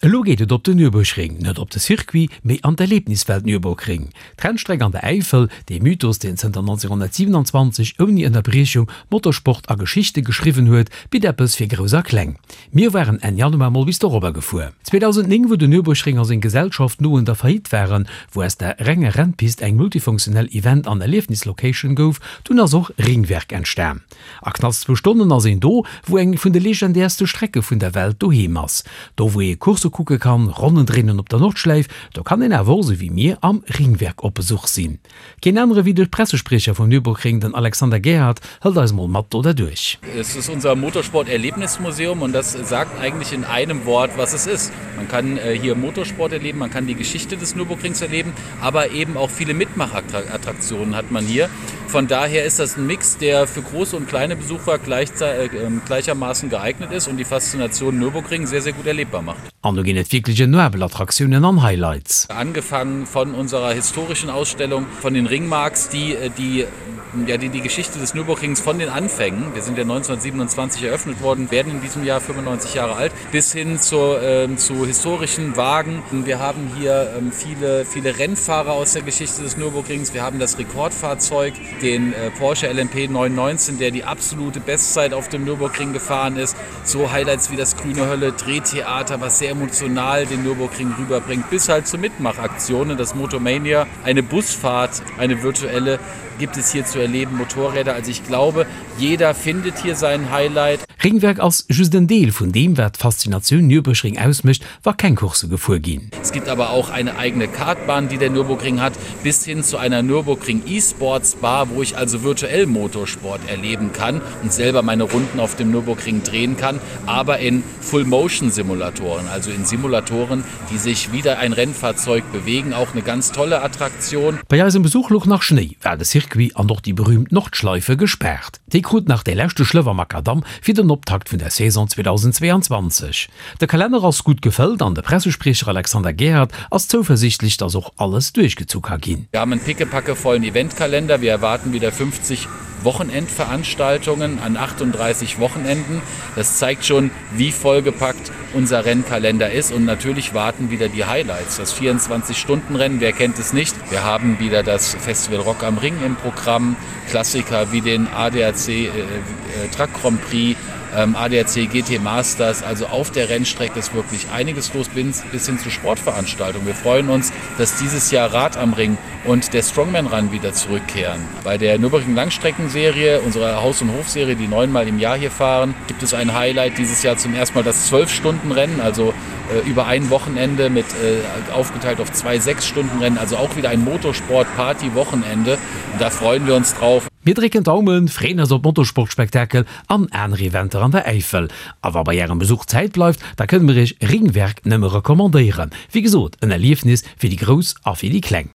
Elo geet et op den Nürburgring, net op de Circuit, mee an d'Erlebniswelt Nürburgring. D'Rennstreck an der Äifel, dee Mythos, deen zënter 1927 ouni Ënnerbriechung Motorsport a Geschichte geschriwwen huet, bitt eppes fir Grouss a Kleng. Mir waren Enn Januar mol bis dorobber gefuer. 2009, wou den Nürburgring a seng Gesellschaft no un der Faillite waren, wou aus der renger Rennpist eng multifunktionell Event an Erliefnislocation gouf, dunn ass och Ringwerk entstan. A knapps zwou Stonnen ass een do, wou eng vun de legendäerste Strecke vun der Welt doheem ass. Do wou ee Coursse kucke kann, Ronnen dréinen op der Nordschläif, do kann een awer och, sou wéi mir, am Ringwerk op Besuch sinn. Keen anere wéi de Pressespriecher vum Nürburgring, den Alexander Gerhard, hëlt eis mol mat do derduerch. Es ist unser Motorsport-Erlebnismuseum und das sagt eigentlich in einem Wort, was es ist. Man kann hier Motorsport erleben, man kann die Geschichte des Nürburgrings erleben, aber eben auch viele Mitmachattraktionen hat man hier. Von daher ist das ein Mix, der für große und kleine Besucher gleichermaßen geeignet ist und die Faszination Nürburgring sehr, sehr gut erlebbar macht. An do ginn et wierklech enoabel Attraktiounen an Highlights. Angefangen von unserer historischen Ausstellung von den Ringmarks, die die ja, die die Geschichte des Nürburgrings von den Anfängen, wir sind ja 1927 eröffnet worden, werden in diesem Jahr 95 Jahre alt, bis hin zu, äh, zu historischen Wagen. Wir haben hier ähm, viele, viele Rennfahrer aus der Geschichte des Nürburgrings. Wir haben das Rekordfahrzeug, den äh, Porsche LMP 919, der die absolute Bestzeit auf dem Nürburgring gefahren ist. So Highlights wie das Grüne Hölle, Drehtheater, was sehr emotional den Nürburgring rüberbringt, bis halt zu Mitmachaktionen, das Motomania, eine Busfahrt, eine virtuelle gibt es hier zu erleben, Motorräder. Also ich glaube, jeder findet hier sein Highlight. Ringwerk ass just en Deel vun deem, wat d'Faszinatioun Nürburgring ausmécht, wa keng Coursse gefuer ginn. Es gibt aber auch eine eigene Kartbahn, die der Nürburgring hat, bis hin zu einer Nürburgring E-Sports Bar, wo ich also virtuell Motorsport erleben kann und selber meine Runden auf dem Nürburgring drehen kann, aber in Full-Motion-Simulatoren, also in Simulatoren, die sich wieder ein Rennfahrzeug bewegen, auch eine ganz tolle Attraktion. Bei eisem Besuch louch nach Schnéi, war de Circuit an och déi berühmt Nordschleife gespaart. Déi krut nach dee leschte Schlëff am Makadamm fir den Optakt vun der Saison 2022. De Kalenner ass gutt gefëllt an de Pressespriecher Alexander Gerhard ass zouversiichtlech, dass och alles duerchgezu ka ginn. Wir haben einen pickepackevollen Eventkalender, wir erwarten wieder 50 Wochenendveranstaltungen an 38 Wochenenden. Das zeigt schon, wie vollgepackt unser Rennkalender ist und natürlich warten wieder die Highlights. Das 24-Stunden-Rennen, wer kennt es nicht? Wir haben wieder das Festival Rock am Ring im Programm, Klassiker wie den ADAC äh, äh, Truck Grand Prix, ähm, ADAC GT Masters. Also auf der Rennstrecke ist wirklich einiges los bis, bis hin zu Sportveranstaltungen. Wir freuen uns, dass dieses Jahr Rad am Ring und der Strongman Run wieder zurückkehren. Bei der Nürburgring Langstreckenserie, unserer Haus- und Hofserie, die neunmal im Jahr hier fahren, gibt es ein Highlight dieses Jahr zum ersten Mal das 12-Stunden-Rennen, also äh, über ein Wochenende mit äh, aufgeteilt auf zwei 6-Stunden-Rennen, also auch wieder ein Motorsport-Party-Wochenende. Da freuen wir uns drauf. Mir drécken d'Daumen, freeën eis op Motorsportspektakel an aner Eventer an der Äifel. A wa bei ärem Besuch Zäit bleift, da kënne mir iech Ringwerk nëmme recommandéieren. Wéi gesot, en Erliefnis fir déi Grouss a fir déi Kleng.